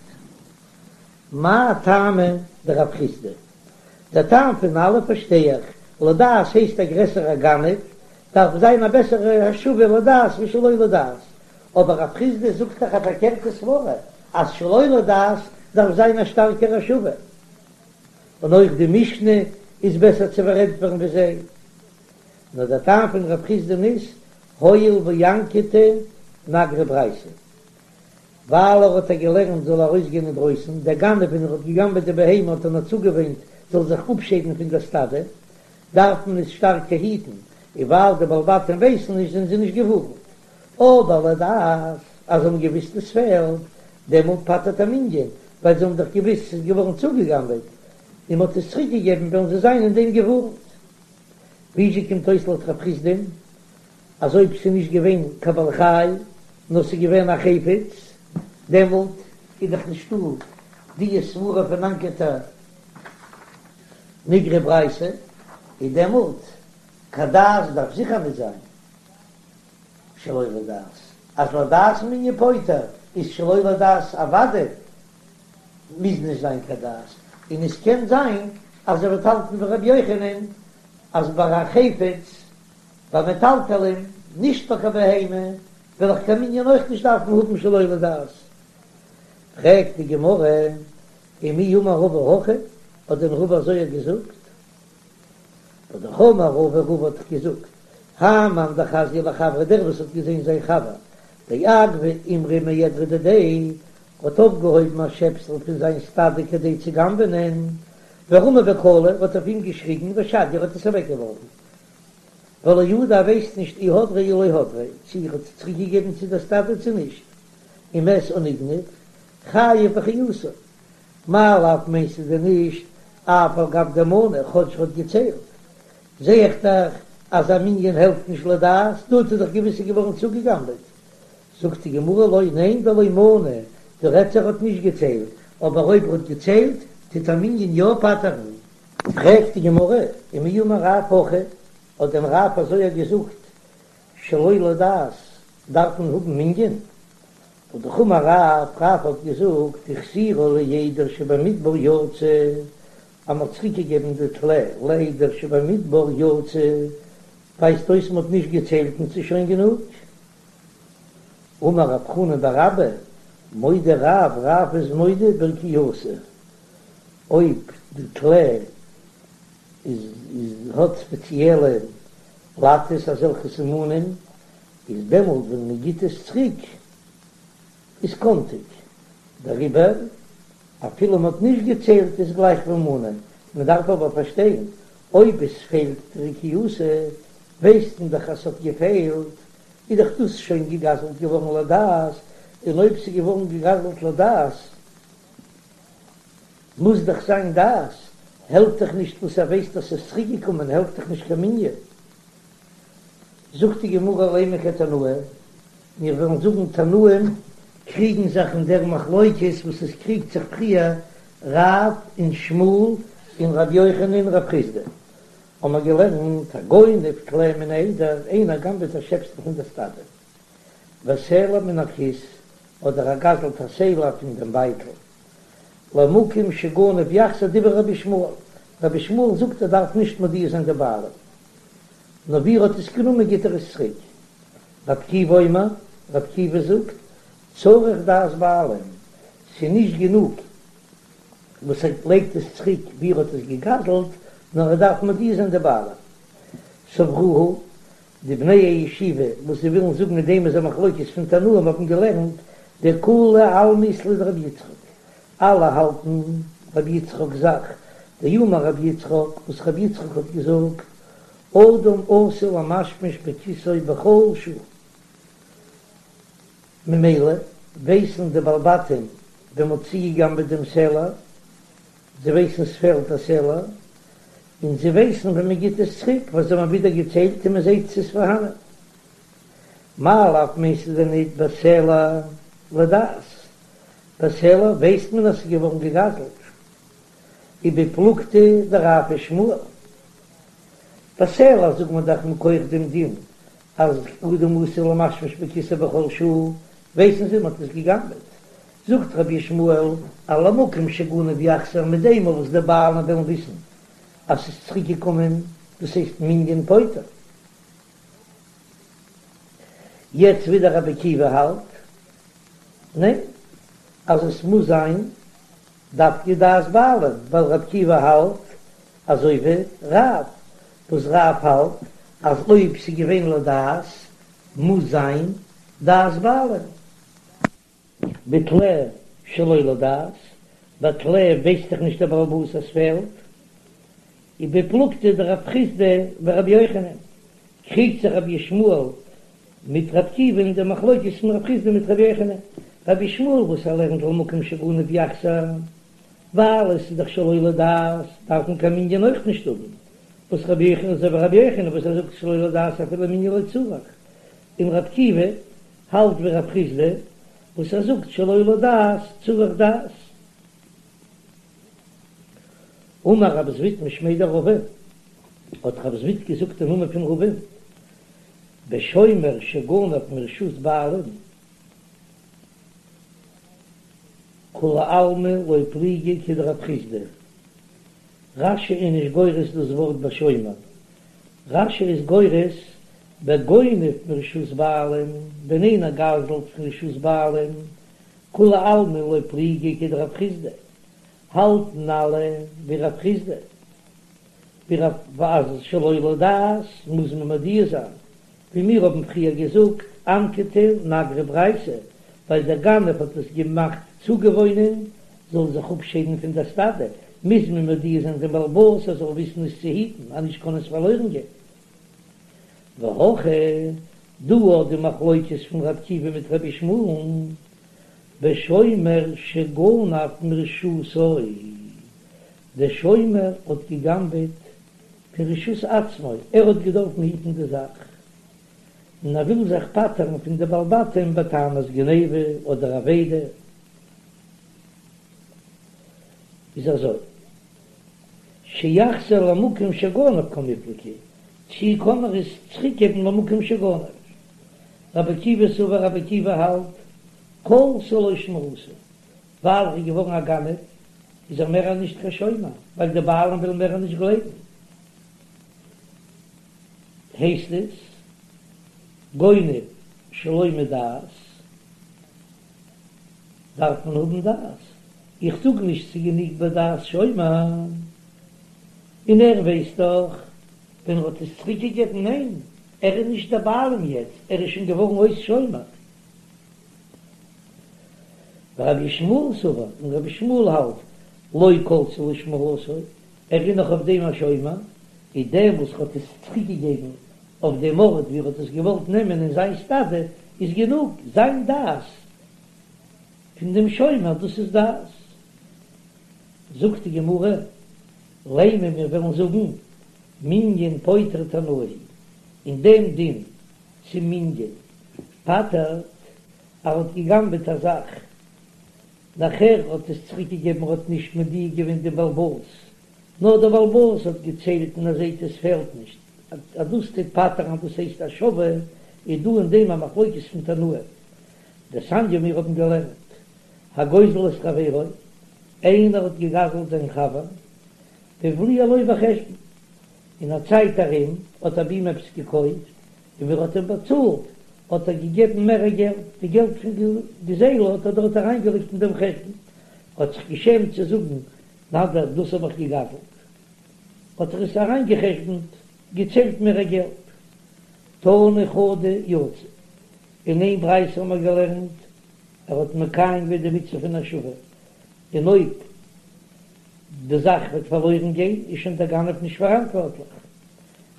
מאי טעמא דרב חסדא? דער טעם פון אלע פארשטיי איך, לדעת הייסט א גרעסערע גנב, דארף זיין א בעסערע השבה לדעת ווי שלא לדעת, אבער רב חסדא זאגט דאך א פארקערטע סברא אז שלא לדעת דארף זיין א שטארקערע השבה, און אויך די משנה איז בעסער צו פארענטפערן ווי זיי. נאר דער טעם פון רב חסדא'ן איז, הואיל ואנקטה נגרי ברייתא. ווייל ער האט איר געלערנט זאל ארויסגיין אינדרויסן, דער גנב ווען ער האט געגנבעט די בהמה האט ער נאר צוגעוואינט זאל זיך אפשיידן פון דער סטאדע, דארף מען עס שטארקער היטן, און ווייל די בעלי בתים ווייסן נישט זענען זיי נישט געווארנט. אבער לדעת אז זיי האבן געוויסט עס פעלט, דעמאלט פטר'ט א מנין, ווייל זיי האבן דאך געוויסט ס'איז געווארן צוגעגנבעט און מ'האט עס צוריקגעגעבן וועלן זיי זיין אין דעם געווארנט. וויאזוי קומט אויס לויט רב חסדא'ן אז אויב ס'איז נישט געווען קיין בעל חי נאר ס'איז געווען א חפץ, דעמאלט איז דאך נישטא די סברה פון אנקטה נגרי ברייתא, איז דעמאלט קיין דעת דארף זיכער נישט זיין שלא לדעת, אז לדעת מנין פוטר איז שלא לדעת אוודאי מוז נישט זיין קיין דעת, און עס קען זיין אז ער וועט האלטן ווי רבי יוחנן אז ביי א חפץ ביי מטלטלין, נישט ביי קיין בהמה, וועל איך קיין מנין אויך נישט דארפן האבן שלא לדעת. פרעגט די גמרא, ומי אמר רבא הכי, האט דען רבא אזוי געזאגט? והא דאך אמר רבא, רבא האט דאך געזאגט, האי מאן דחזייה לחבריה דער וואס האט געזען זיין חבר דאגבה אימרא מעדרא דידיה, האט אויפגעהויבן א שעפסל פון זיין סטאדע כדי צו גנב'נען, ורמא בקלא, האט אויף אים געשריגן, ושדייה האט עס אוועקגעווארפן. ולא ידע ער ווייסט נישט אי הדריה אי לא הדריה, צו ער האט עס צוריק געגעבן צו דער סטאדע צו נישט, ומת או נגנב, חייב באחריותו. מאי לאו מיינסטו דען נישט אף על גב דמני כאטש ער האט געציילט, זע איך דאך אז א מנין העלפט נישט לדעת, דא האט ער דאך געוויס ס'איז געווארן צוגעגנבעט. זאגט די גמרא לא ניין דלא מני, דא רעדט זיך ער האט נישט געציילט, אבער אויב ער האט געציילט. טוט א מנין יא פטר'ן. פרעגט די גמרא, ומי אמר רב הכי, האט דען רב אזוי געזאגט שלא לדעת דארף מען האבן מנין? והא דאך אמר רב, רב האט געזאגט החזירה לעדר שבמדבר יצא, אז מ'האט צוריק געגעבן די טלה לעדר שבמדבר יצא, ווייזט אויס מ'האט נישט געציילט און ס'איז שוין גענוג. אמר רב חנן בר אבא, מודה רב, רב איז מודה ברקיעתא, אויב די טלה איז האט ספעציעלע לאטעס אזעלכע סימנים, איז דעמאלט ווען מען גיט עס צוריק איז קאנטיג, דעריבער אפילו מען האט נישט געציילט איז גלייך ווי מנה, מען דארף אבער פארשטיין אויב עס פעלט רקיעתא ווייסט מען דאך אז ס'האט געפעלט, איז דאך דאס שוין געגזלט געווארן לדעת, און אויב ס'איז געווארן געגזלט לדעת מוז דאך זיין דעת, העלפט דאך נישט וואס ער ווייסט אז ס'איז צוריק געקומען העלפט דאך נישט קיין מנין. זאגט די גמרא לימא כתנאי, מיר וועלן זאגן תנאים קריגן זיך אין דער מחלוקת וואס עס קריגט זיך פריער רב און שמואל און ר' יוחנן און רב חסדא, האבן מיר געלערנט הגונב טלה מן העדר, איינער גנב'עט א שעפסל פון דער סטאדע, וסלע מן הכיס, אדער ער גזל'ט א סלע פון דעם בייטל, למקום שגנב יחזיר דברי רבי ישמעאל, רבי ישמעאל זאגט ער דארף נישט מודיע זיין די בעלים, נאר ווי ער האט עס גענומען גיט ער עס צוריק. רבי עקיבא אומר, רבי עקיבא זאגט, צריך דעת בעלים, ס'איז נישט גענוג וואס ער לייגט עס צוריק ווי ער האט עס געגזלט, נאר ער דארף מודיע זיין די בעלים. סברוה, די בני הישיבה וואס זיי ווילן זאגן אין דעם איז א מחלוקת פון תנאים האבן געלערנט דכולי עלמא אית להו דרבי יצחק, אלע האלטן רבי יצחק'ס זאך, דאמר רבי יצחק, וואס רבי יצחק האט געזאגט, אדם עשוי למשמש בכיסו בכל שעה. ממילא ווייסן די בעלי בתים ווען מ'האט צוגעגנבעט דעם סלע, זיי ווייסן ס'פעלט א סלע, און זיי ווייסן ווען מ'גיט עס צוריק, ווייל זיי האבן ווידער געציילט און מ'זעט ס'איז פארהאנען. מאי לאו מיינסטו דען ניט בסלע לדעת? בסלע ווייסט מען אז ס'איז געווארן געגזלט. ובפלוגתא דרב ושמואל. בסלע זאגט מען דאך מכח דעם דין אז אדם עשוי למשמש בכיסו בכל שעה, ווייסן זיי מ'האט עס געגנבעט. זאגט רבי ישמעאל אז למקום שגנב יחזיר מיט דעם וואס די בעלים וועלן וויסן אז ס'איז צוריק געקומען, דאס הייסט מנין פוטר. יעצט ווידער רבי עקיבא האלט ניין אז עס מוז זיין דווקא דעת בעלים, ווייל רבי עקיבא האלט אזוי ווי רב, וואס רב האלט אז אויב ס'איז געווען לדעת מוז זיין דעת בעלים. בטלה שלא לדעת, ביי טלה ווייסט דאך נישט דער בעל הבית אז ס'פעלט, ובפלוגתא דרב חסדא ורבי יוחנן, קריגט זיך רבי ישמעאל מיט רבי עקיבא אין די מחלוקת פון רב חסדא מיט רבי יוחנן, רבי ישמעאל וואס ער לערנט למקום שגנב יחזיר, ווייל עס איז דאך שלא לדעת דארף מען קיין מנין אויך נישט האבן, וואס רבי יוחנן אזוי ווי רבי יוחנן וואס ער זאגט שלא לדעת אפילו מנין לא צריך, און רבי עקיבא האלט ווי רב חסדא וואס ער זאגט שלא לדעת צריך דעת. אמר רב זביד משמיה דרבא, האט רב זביד געזאגט אין נאמען פון רבא'ן, בשומר שגנב מרשות בעלים, כולי עלמא לא פליגי כדרב חסדא. רש"י איז נישט גורס דאס ווארט בשומר, רש"י איז גורס בגונב מרשות בעלים, ווען איינער גזל'ט פון רשות בעלים, כולי עלמא לא פליגי כדרב חסדא, האלטן אלע ווי רב חסדא, ווי רב אז שלא לדעת מוז מען מודיע זיין, ווי מיר האבן פריער געזאגט, אנקטה נגרי ברייתא, ווייל דער גנב האט עס געמאכט צוגעוואוינען זאל זיך אפשיידן פון דער סטאדע, מוז מען מודיע זיין דעם בעל הבית ער זאל וויסן עס צו היטן, אז נישט קען עס פארלוירן גיין. והכא, דא האט די מחלוקת פון ר' עקיבא מיט רבי ישמעאל'ן, בשומר שגנב מרשותו, דער שומר האט גע'גנב'עט פון רשות עצמו, ער האט געדארפן היטן די זאך, און ער וויל זיך פטר'ן פון די בעלי בתים בטענת גניבה אדער אבידה. איז אזוי, שיחזיר למקום שגנב קמיפלגי, צי קען ער עס צוריקגעבן למקום שגנב? רבי עקיבא סבר רבי עקיבא האלט, כלתה לו שמירתו, ווייל ער איז געווארן א גנב איז ער מער נישט קיין שומר, ווייל די בעלים ווילן מער נישט גלייבן. הייסט עס גונב שלא מדעת דארף מען האבן דעת, איך זאג נישט ס'איז גענוג בדעת שומר, און ער ווייסט דאך ווען ער האט עס צוריק געגעבן, ניין ער איז נישט דער בעלים יעצט, ער איז שוין געווארן אויס שומר. ורבי ישמעאל סבר, און רבי ישמעאל האלט, לא כלתה לו שמירתו, ער איז נאך אויף דעם א שומר, איז דעם וואס האט עס צוריק געגעבן אויף דעם ארט ווי ער האט עס געוואלט נעמען אין זיין סטאדע, איז גענוג זיין דעת פון דעם שומר, דאס איז דעת. זאגט די גמרא, לימא מיר וועלן זאגן, מנין פוטר תנאי, אין דעם דין צו מנין פטר'ט, ער האט גע'גנב'עט א זאך, נאכער האט עס צוריק געגעבן ער האט נישט מודיע געווען דעם בעל הבית, נאר דער בעל הבית האט געציילט און ער זעט עס פעלט נישט, אז דאס טוט פטר'ן אז דאס הייסט השבה, איז דא אין דעם א מחלוקת פון תנאים. דתניא מיר האבן געלערנט, הגוזל את חברו, איינער האט געגזלט זיין חבר, והבליע לו בחשבון, אין א צייט ארום האט ער ביי אים עפעס געקויפט, און ווען ער האט אים באצאלט האט ער געגעבן מער געלט, די געלט פון גזילה האט ער דארט אריינגעלייגט אין דעם חשבון, האט זיך געשעמט צו זאגן נא דיר דאס האב איך געגזלט, האט ער עס אריינגעחשבונט, געציילט מער געלט. תני חדא יצא, אין איין ברייתא האבן מיר געלערנט, ער האט מקיים געווען די מצוה פון השבה, און אויב די זאך וועט פארלוירן גיין איז שוין דער גנב נישט פאראנטווארטליך.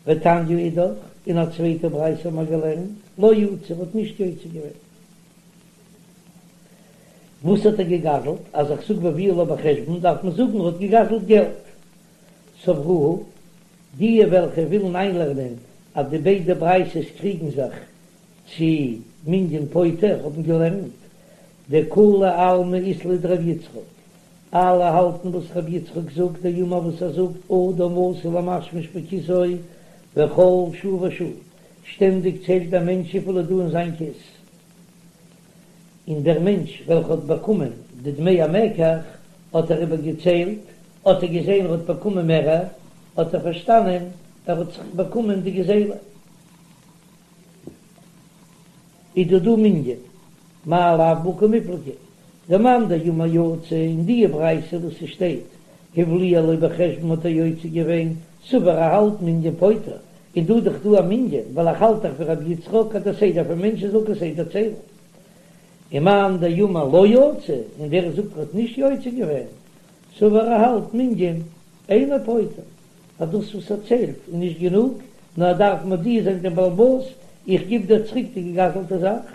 ותניא אידך, אין א צווייטע ברייתא האבן מיר געלערנט, לא יצא, ער האט נישט יוצא געווען. וואס האט ער געגזלט? אז איך זאג והבליע לו בחשבון דארף מען זאגן ער האט געגזלט געלט. סברוה, די וועלכע ווילן איינלערנען אז די ביידע ברייתות קריגן זיך צו מנין פוטר האבן געלערנט דכולי עלמא אית להו דרבי יצחק, אלע האלטן וואס רבי יצחק זאגט, דאמר וואס ער זאגט אדם עשוי למשמש בכיסו בכל שעה ושעה, שטענדיג ציילט דער מענטש וויפיל איז דא אין זיין כיס, און דער מענטש וועלכע האט באקומען די דמי המקח האט ער איבער געציילט, האט ער געזען ער האט באקומען מערער, האט ער פארשטאנען ער האט זיך באקומען די גזילה. איז דא דא מנין, מאי לאו בהא קמיפלגי, דמאן דאמר יצא אין די ברייתא וואס ס'שטייט הבליע לו בחשבון האט ער יוצא געווען, סבר ער האלט מנין פוטר, און דא דאך דא א מנין, ווייל איך האלט דאך ווי רבי יצחק אז דער סדר פון מענטשן זאל כסדר ציילן. ומאן דאמר לא יצא, און ווער זאגט ער האט נישט יוצא געווען, סבר ער האלט מנין אינו פוטר. אז דאס וואס ער ציילט איז נישט גענוג, נאר ער דארף מודיע זיין דעם בעל הבית, איך גיב דיר צוריק די געגזלטע זאך.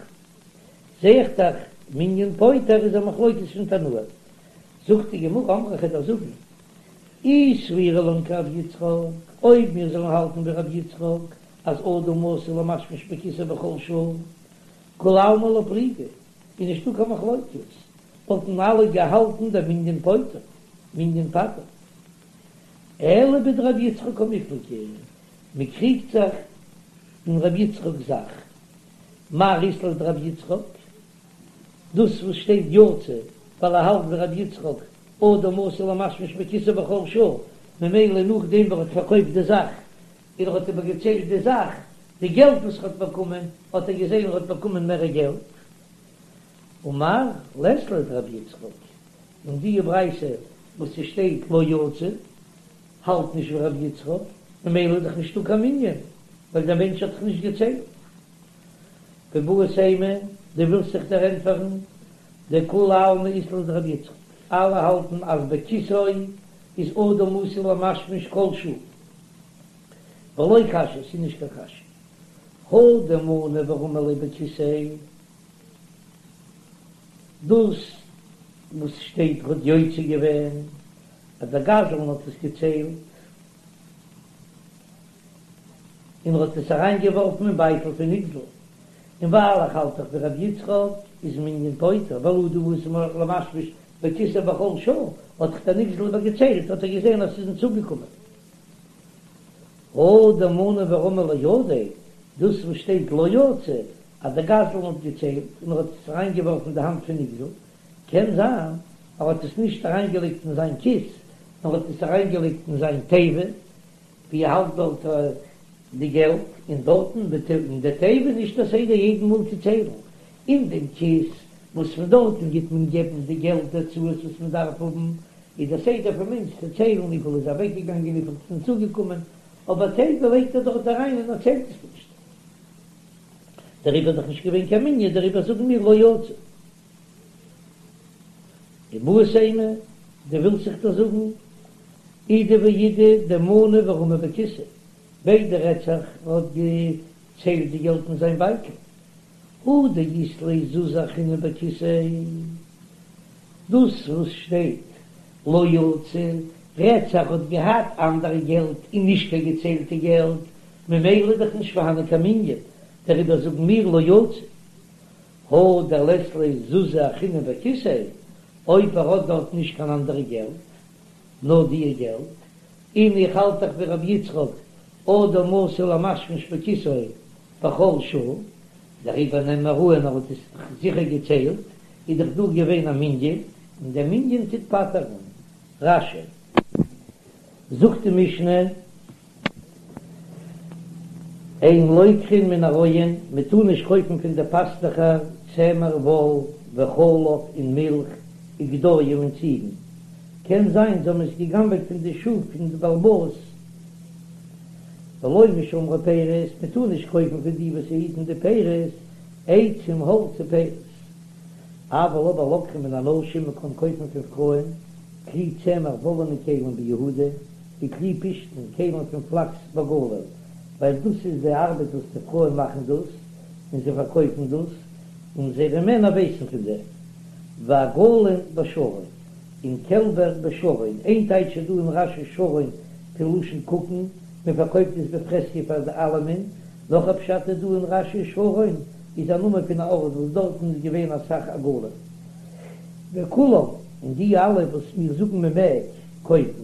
זע איך דאך, מנין פוטר איז א מחלוקת פון תנאים. זאגט די גמרא, אמרי כ'וועל דיר זאגן, אי סבירא לן כרבי יצחק, אויב מיר זאלן האלטן ווי רבי יצחק, אז אדם עשוי למשמש בכיסו בכל שעה, כולי עלמא לא פליגי, איז נישטא קיין מחלוקת, וואלטן אלע געהאלטן דמנין פוטר, מנין פטר'ט. אלא בדרבי יצחק קמיפלגי, מען קריגט זיך אין רבי יצחק'ס זאך, מר אית ליה דרבי יצחק, דאס וואס שטייט יצא ווייל ער האלט ווי רבי יצחק, אדם עשוי למשמש בכיסו בכל שעה, ממילא נאכדעם וואס ער האט פארקויפט די זאך און ער האט איבערגעציילט די זאך, די געלט וואס ער האט באקומען, האט ער געזען ער האט באקומען מער געלט. ומר לית ליה דרבי יצחק, און די ברייתא וואס ס'שטייט לא יצא האלט נישט ווי רבי יצחק, ממילא איז דאך נישטא קיין מנין, ווייל דער מענטש האט דאך נישט געציילט. ואיבעית אימא, דו ווילסט זיך דערענטפערן, דכולי עלמא אית להו דרבי יצחק, אלע האלטן אז בכיסו איז אדם עשוי למשמש כל שעה. ולא קשיא, ס'איז נישט קיין קשיא. הא דמנה ורמי ליה בכיסיה. דאס וואס שטייט האט יוצא געווען אז דער גזלן האט עס געציילט און ער האט עס אריין געווארפן אין בייטל פון נגזל, און ווייל איך האלט דאך ווי רבי יצחק איז מנין פוטר ווייל אדם עשוי למשמש בכיסו בכל שעה. האט דאך דער נגזל איבער געציילט האט ער געזען אז ס'איז אים צוגעקומען. הא דמנה ורמא לידיה, דאס וואס שטייט לא יצא אז דער גזלן האט געציילט און ער האט עס אריין געווארפן אין די האנט פון נגזל, קען זיין ער האט עס נישט אריין געלייגט אין זיין כיס נאר האט עס אריין געלייגט אין זיין תיבה ווי ער האלט דארט די געלט, און דארטן אין די תיבה נישט א סדר יעדן מאל צו ציילן אין דעם כיס וואס פון דארטן גיט מען געבן די געלט די הוצאות וואס מען דארף האבן, איז דער סדר פון מענטש צו ציילן וויפיל איז אוועקגעגאנגען וויפיל איז צוגעקומען, אבער תיבה לייגט ער דארט אריין און ער ציילט עס נישט. דעריבער איז דאך נישט געווען קיין מנין, דעריבער זאגן מיר לא יצא. ואיבעית אימא, דו ווילסט זיך דאך זאגן, אידי ואידי דמנו ורמו בכיסיה, ביידע רעדט זיך ער האט געציילט די געלט אין זיין בייטל, הא דאית ליה זוזי אחרינא בכיסיה, דאס וואס שטייט לא יצא רעדט זיך האט געהאט אנדערע געלט און נישט קיין געציילטע געלט, ממילא איז דאך נישט פארהאנען קיין מנין, דעריבער זאגן מיר לא יצא. הא דלית ליה זוזי אחרינא בכיסיה, אויב ער האט דארט נישט קיין אנדערע געלט, נאר דיע געלט, און איך האלט דאך ווי רבי יצחק, אדם עשוי למשמש בכיסו בכל שעה, דעריבער נעמען מיר אן ער האט עס זיכער געציילט, איז דאך דא געווען א מנין, און דער מנין טוט פטר'ן. רש"י. זאגט די משנה, אין לוקחין מן הרועים, מען טאר נישט קויפן פון די פאסטוכער צמר וואל וחלב און מילך וגדיים און ציגן, קען זיין זיי האבן עס גע'גנב'עט פון די שאף פון די בעל הבית, ולא משומרי פירות, מען טאר נישט קויפן פון די וואס היטן די פירות, עצים האלץ ופירות. אבל אבער לוקחין מן הנשים, מען קען קויפן פון פרויען, כלי צמר וואלענע כלים ביהודה, וכלי פשתן, כלים פון פלאקס בגליל, ווייל דאס איז די ארבעט וואס די פרויען מאכן דאס, און זיי פארקויפן דאס, און זייערע מענער ווייסן פון דעם. ועגלים בשרון, און קעלבער בשרון, איין טייטש איז דא אין רש"י שרון פון לשון קוקן, מען פארקויפט עס בפרהסיא פאר די אלעמען, נאך א פשט איז דא אין רש"י שרון איז א נאמען פון א ארט וואס דארטן איז געווען אסאך עגלים. וכולם, און די אלע וואס מיר זאגן מען מעג קויפן,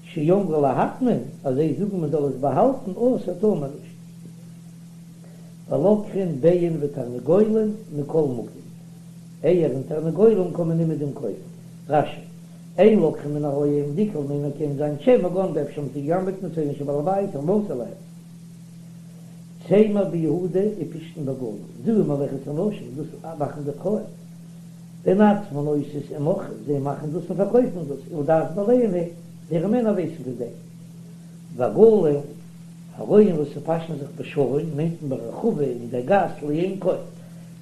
שאמרו להטמין, אז זיי זאגן מען זאל עס באהאלטן, אסור טאר מען נישט. ולוקחין ביצים ותרנגולים מכל מקום, אייער און תרנגולים קען מען אומעדום קויפן. רש"י, אין לוקחין מן הרועים, דאיכא למימר קען זיין שמא גנבו אפשר האבן זיי געגנבעט מצאנן של בעל הבית המסור להם. צמר ביהודה ופשתן בגליל, זו מלאכת הנשים, דאס מאכן די פרויען. והן עצמן עושות ומוכרות, זיי מאכן דאס און פארקויפן דאס, ולדעת בעליהן הן, זייערע מענער ווייסן פון דעם. ועגלים, הרועים וואס פאשן זיך בשרון מיינט מען ברחבה אין דער גאס לעין כל,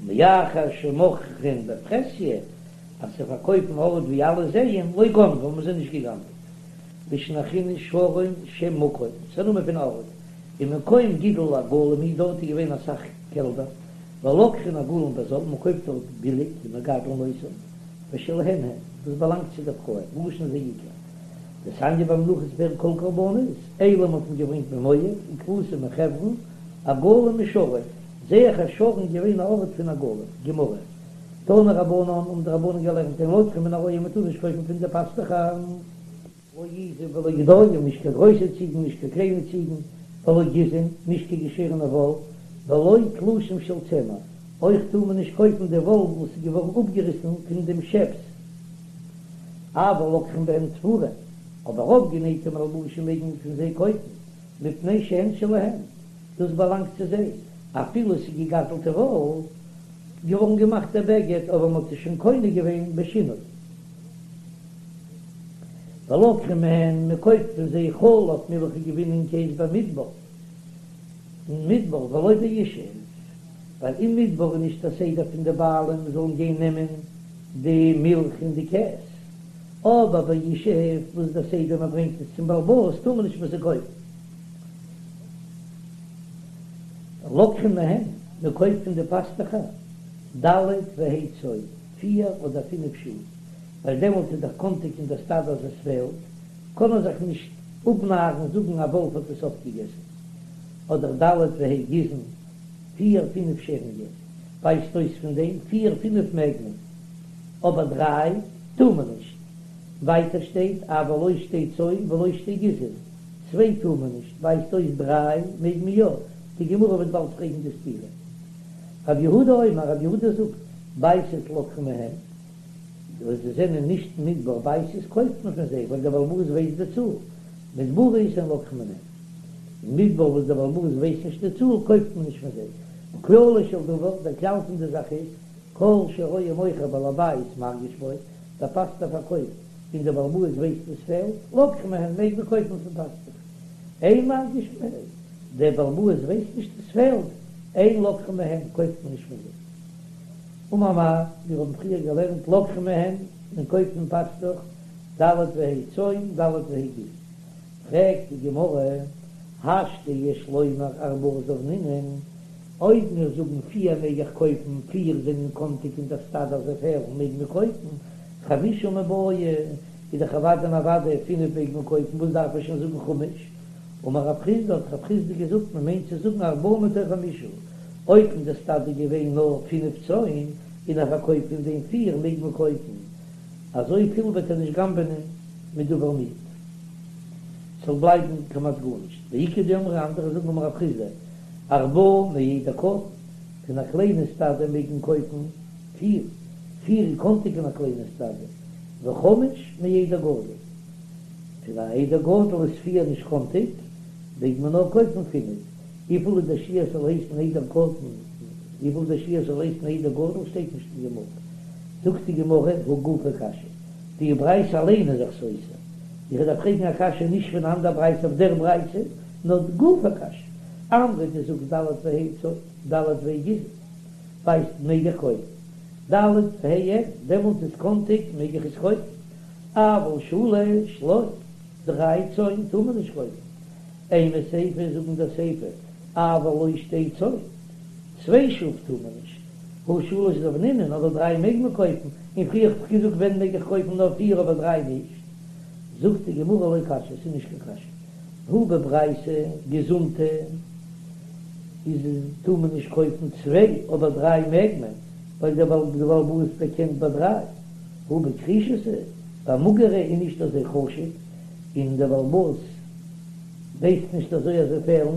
מאחר שמוכרין בפרהסיא, אז זיי פארקויפן ארט ווי אלע זעען, לא גנבו האבן זיי נישט געגנבעט. לישנא אחרינא שרון שם מקום, ס'איז א נאמען פון ארט, ומקום גידול עגלים הוא דארט איז געווען אסאך קעלבער, ולוקחין עגלים בזול, מען קויפט דארט ביליג ומגדלין אותם, ושלהן הן, דאס באלאנגט צו די פרויען, ראשון זה עיקר. דתניא במנחות פרק כל קרבנות, אילים האט מען געברענגט ממואב, וכבשים מחברון, עגלים משרון, זעה איך אז שרון איז געווען א ארט פון עגלים. גמרא. תנו רבנן, האבן די רבנן געלערנט אין לוקחין מן הרועים מען טאר נישט קויפן פון די פאסטוכער. לא עזים ולא גדיים, נישט קיין גרויסע ציגן, נישט קיין קליינע ציגן, ולא גיזין, נישט קיין געשערענע וואל, ולא תלושים של צמר, אויך טאר מען נישט קויפן די וואל וואס איז געווארן אפגעריסן פון דעם שעפס, אבל לוקחין בהן תפורין, אבער אויפגענייטע מלבושים מעג מען פון זיי קויפן, מפני שהן שלהן, דאס באלאנגט צו זיי, אפילו עס איז געגזלטע וואל, געווארן געמאכט דער בגד, אבער מען האט עס שוין קונה געווען בשינוי. ולוקחין מהן, מען קויפט פון זיי חלב מילך גבינה און קעז במדבר, אין מדבר ולא בישוב, ווייל אין מדבר איז נישט א סדר פון די בעלים זאלן גיין נעמען די מילך און די קעז, אבער בישוב וואס דער סדר מען ברענגט עס צום בעל הבית טאר מען נישט פון זיי קויפן. ולוקחין מהן, מען קויפט פון די פאסטוכער ד' וה' צאן, פיר אדער פינף שאף, ווייל דעמאלט איז דאך קאנטיג אין דער סטאדע אז עס פעלט, קען ער זיך נישט אפנארן זאגן א וואלף האט עס אויפגעגעסן, אדער ד' וה' גיזין, פיר פינף שערונגען, ווייזט אויס פון דעם פיר פינף מעג מען, אבער דריי טאר מען נישט. ווייטער שטייט אבל לא שתי צאן ולא שתי גיזין, צוויי טאר מען נישט, ווייזט אויס דריי מעג מען יא, די גמרא וועט באלד פרעגן די סתירה. רב יהודה אומר, רב יהודה זאגט, בייתות לוקחין מהן, וואס זיי זענען נישט מדבר בייתות קויפט מען פון זיי ווייל דער בעל הבית ווייסט די צאל, מדבריות אין לוקחין מהן, אין מדבר וואס דער בעל הבית ווייסט נישט די צאל קויפט מען נישט פון זיי, וכללו של דבר, דער כלל פון די זאך איז, כל שרואה מוכר בעל הבית מרגיש בו, דער פאסטעך פארקויפט און דער בעל הבית ווייסט וואס פעלט, לוקחין מהן מעג מען קויפן פון פאסטעך. אין מרגיש בו, דער בעל הבית ווייסט נישט וואס פעלט, אין לוקחין מהן קויפט מען נישט פון זיי. אמר מר, מיר האבן פריער געלערנט לוקחין מהן, מען קויפט פון פאסטוך, ד' וה' צאן, ד' וה' גיזין. פרעגט די גמרא, השתא יש לומר ארבעה זבנינן, אויב מיר זאגן פיר מעג איך קויפן, פיר זענען קאנטיג אין דער סטאדע אז זיי פעלן מעג מען קויפן, חמישה מיבעיא, איז דאך אוודאי און אוודאי פינף מעג מען קויפן, וואס דארף איך שוין זאגן חמש? אמר רב חסדא האט רב חסדא געזאגט מען מיינט צו זאגן ארבעה מתוך חמישה, אויב אין דער סטאדע געווען נאר פינף צאן און ער פארקויפט פון דעם פיר מעג מען קויפן, אזוי פיל וועט ער נישט גנב'ענען מדבר מועט. ס'זאל בלייבן כמעט גארנישט. ואיכא דאמרי אנדערע זאגן אמר רב חסדא, ארבעה מעדר קטן, פון א קליינע סטאדע מעג מען קויפן פיר, פיר איז קאנטיג אין א קליינע סטאדע, וחמש מעדר גדול, פון א עדר גדול איז פיר נישט קאנטיג, מעג מען נאר קויפן פינף, וויפיל איז דער שיעור ס'זאל הייסן עדר קטן, וויפיל דער שיעור ס'זאל הייסן עדר גדול שטייט נישט אין גמרא, זאגט די גמרא הא גופא קשיא, די ברייתא אליין איז זיך סותר, איך דארף פרעגן א קשיא נישט פון אן אנדער ברייתא אויף דער ברייתא, נאר גופא קשיא, אמרת דו זאגסט ד' וה' צאן, ד' וה' גיזין, ווייסט מעג איך קויפן, ד' וה' אין, דעמאלט איז קאנטיג מעג איך עס קויפן, אבל שלש לא, דריי צאן טאר מען נישט קויפן, אימא סיפא זאג אין דער סיפא, אבל לא שתי צאן, צוויי שאף טאר מען נישט, הא שלש זבנינן, אבער דריי מעג מען קויפן, און פריער האב איך געזאגט ווען מעג איך קויפן נאר פיר אבער דריי נישט, זאגט די גמרא לא קשיא, ס'איז נישט קיין קשיא, הא בברייתא געזונטע איז טאר מען נישט קויפן צוויי אבער דריי מעג מען, ווייל דער בעל הבית דערקענט ביי דריי, הא בכרישתא, ביי מאגערע איז נישט אזוי חשוב, און דער בעל הבית ווייסט נישט אזוי אז זיי פעלן,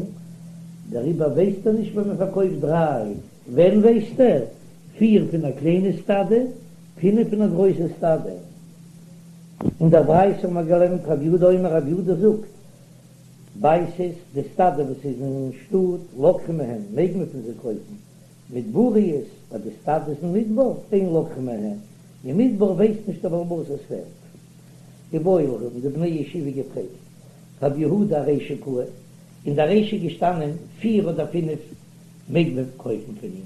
דעריבער ווייסט ער נישט ווען מען פארקויפט דריי. ווען ווייסט ער? פיר פון א קליינע סטאדע, פינף פון א גרויסע סטאדע. אין דער ברייתא האבן מיר געלערנט רב יהודה אומר רב יהודה זאגט, בייתות, די סטאדע וואס איז אין שטאט, לוקחין מהן, מעג מען פון זיי קויפן, מדבריות, ביי די סטאדעס אין מדבר, אין לוקחין מהן, אין מדבר ווייסט נישט דער בעל הבית עס פעלט. איבעיא להו האבן די בני ישיבה געפרעגט, רב יהודה ארישא קאי, אין דער רישא געשטאנען פיר אדער פינף מעג מען קויפן פון אים,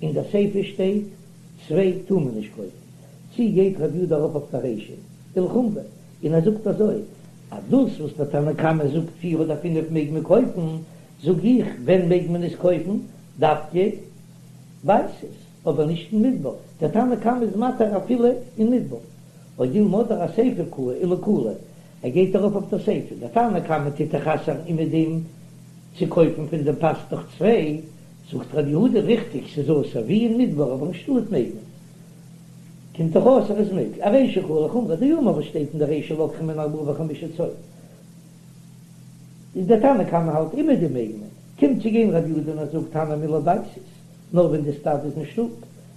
אין דער סיפא שטייט צוויי טאר מען נישט קויפן, צי גייט רב יהודה ארויף אויף דער רישא ולחומרא, און ער זאגט אזוי אז דאס וואס דער תנא קמא זאגט פיר אדער פינף מעג מען קויפן, זאג איך ווען מעג מען עס קויפן, דווקא בייתות, אבער נישט אין מדבר, דער תנא קמא איז מתיר אפילו אין מדבר, או דילמא אדער אסיפא קאי ולקולא, ער גייט ארויף אויף דער סיפא, דער תנא קמא טוט דאך אסר'ן אומעדום צו קויפן פון דעם פאסטוך צוויי, זאגט ר' יהודה ריכטיג ס'איז אסור ווי אין מדבר אבער אין שטאט מעג מען, קומט דאך אויס אז עס מעג, ארישא קאי ולחומרא דאמר וואס שטייט אין דער רישא לוקחין מהן ארבעה וחמישה צאן, איז דער תנא קמא האלט אומעדום מעג מען, קומט צו גיין ר' יהודה און ער זאגט הני מילי בייתות, נאר ווען די סטאדע איז אין שטאט,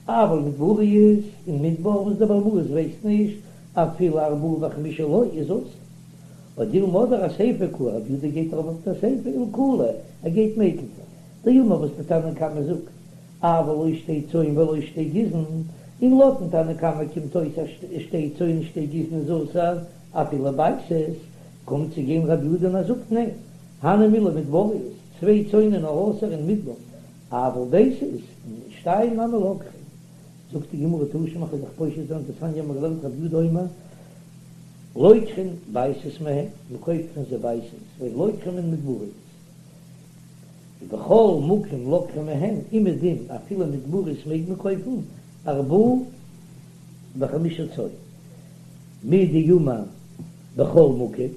אבל מדבריות אין מדבר וואס דער בעל הבית ווייסט נישט אפילו ארבעה וחמישה לא איז אסור. או דילמא אדער אסיפא קאי רב יהודה גייט ארויף אויף דער סיפא ולקולא ער גייט מקיל זיין. דאמר וואס דער תנא קמא זאגט אבל לא שתי צאן ולא שתי גיזין, און לויטן תנא קמא קומט אויס אז שתי צאן און שתי גיזין איז אסור אפילו בייתות, קומט צו גיין רב יהודה און ער זאגט ניין, הני מילי מדבריות, צוויי צאן איז נאר אסור אין מדבר, אבל בייתות, שתיים נמי לוקחין. זאגט די גמרא תא שמע כ'וועל דיך פושט זיין דתניא מ'האט געלערנט רבי יהודה אומר לוקחין בייתות מהן, מ'קויפט פון זיי בייתות, ואין לוקחין מן מדבריות, ובכל מקום לוקחין מהן, אומעדום אפילו מדבריות מעג מען קויפן ארבעה וחמישה צאן, מדאמר בכל מקום,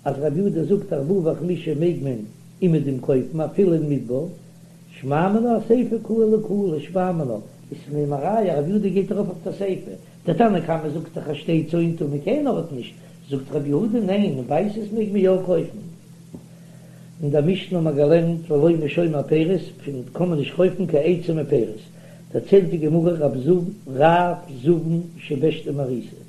אז רבי יהודה זאגט ארבעה וחמישה מעג מען אומעדום קויפן אפילו אין מדבר, שמע מינה אסיפא קאי ולקולא שמע מינה, איז פון דעם א ראיה רבי יהודה גייט ארויף אויף די סיפא. דער תנא קמא זאגט דאך אז שתי צאן טאר מען קיין ארט נישט, זאגט רבי יהודה ניין, אין בייתוס מעג מען יא קויפן. אין דער משנה האט מען געלערנט ולא משומר פירות, פון קען מען נישט קויפן קיין עצים און פירות, דערציילט די גמרא רב זבן שבשתא מעריסה.